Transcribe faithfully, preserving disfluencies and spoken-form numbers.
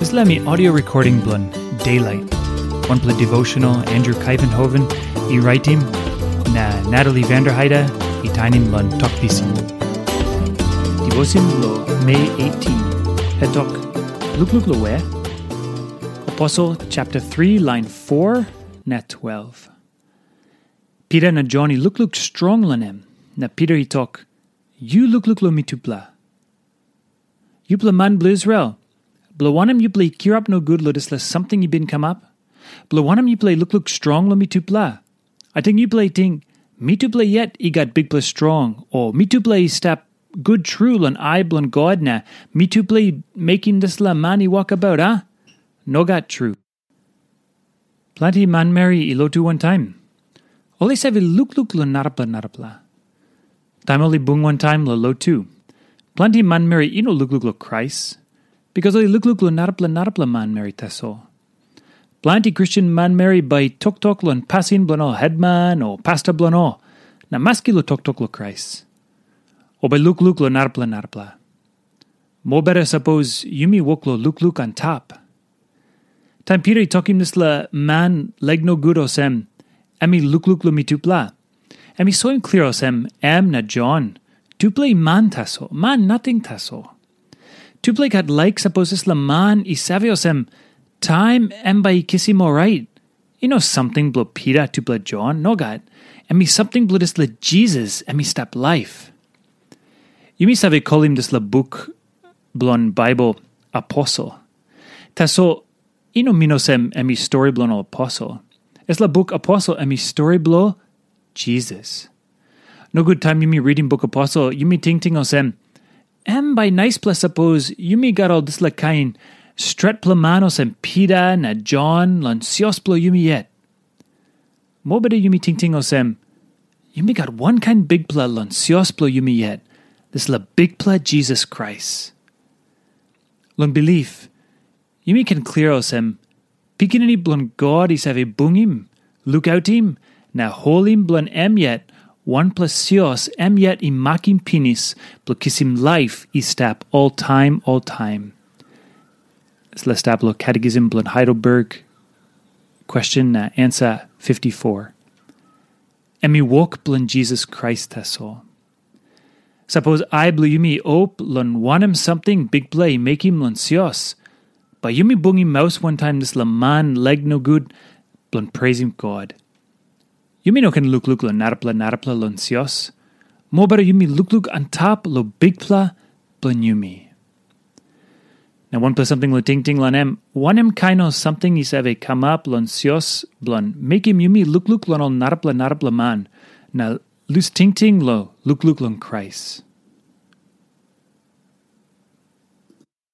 Dispela mi audio recording bilong Daylight, wanpela devotional Andrew Kaivenhoven i raitim, na Natalie Vanderheide i tainim long Tok Pisin. Devotion lo Mei eighteen, hetok, lukluk lo we? Apostle chapter three, line four na twelve. Peter na John i lukluk strong long em, na Peter i tok, "Yu lukluk long mitupela. Yupela man bilong Israel, bilong wanem yupela i kirap nogut long dispela samting i bin kamap? Bilong wanem yupela i lukluk strong long mitupela? Ating yupela i ting, mitupela yet i gat bikpela strong, o mitupela i stap gut tru long ai bilong God na mitupela i mekim dispela man i wokabaut, a? Nogat tru." Planti manmeri i lotu wantaim. Ol i save lukluk long narapela narapela. Taim ol i bung wantaim long lotu, planti manmeri i no lukluk long Krais, bikas ol i lukluk long narapela narapela manmeri tasol. Planti Kristen manmeri bai i toktok long pasin bilong ol hetman o pasta bilong ol, na maski long toktok long Krais, o bai lukluk long narapela narapela. Mobeta sapos yumi wok long lukluk antap. Taim Pita i tokim dispela man laik nogut olsem, em i lukluk long mitupela, em i soim klia olsem, em na Jon, tupela i man tasol, man nating tasol. Tupela i gat laik sapos dispela man i save olsem, taim em bai i kisim orait, i no samting bilong Pita tupela Jon, nogat. Em i samting bilong dispela Jisas, em i stap laip. Yumi save kolim dispela buk bilong Baibel aposel. Tasol i no min olsem em i stori bilong ol aposel. Dispela buk aposel em i stori bilong Jisas. Nogut taim yumi ritim buk aposel, yumi tingting olsem, em bai naispela sapos yumi gat ol dispela kain stretpela man olsem Pita na Jon long sios bilong yumi yet. Mobeta yumi tingting olsem, yumi gat wankain Bikpela long sios bilong yumi yet, dispela Bikpela Jisas Krais. Long bilip, yumi ken klia olsem, Pikinini bilong God i save bungim, lukautim, na holim bilong em yet, wanpela sios em yet i makim pinis bilong kisim laip i stap oltaim oltaim. Dispela stap long Catechism bilong Heidelberg, question na ansa fifty-four. Em i wok bilong Jisas Krais tasol. Sapos ai bilong yumi i op long wanem samting Bikpela i mekim long sios, bai yumi bungim maus wantaim dispela man laik nogut bilong preisim God. Yumi no ken lukluk long narapela narapela long sios, mobeta yumi lukluk antap long Bikpela bilong yumi. Na wanpela samting long tingting long em, wanem kain ol samting i save kamap long sios bilong mekim yumi lukluk long ol narapela narapela man, na lus tingting long lukluk long Krais.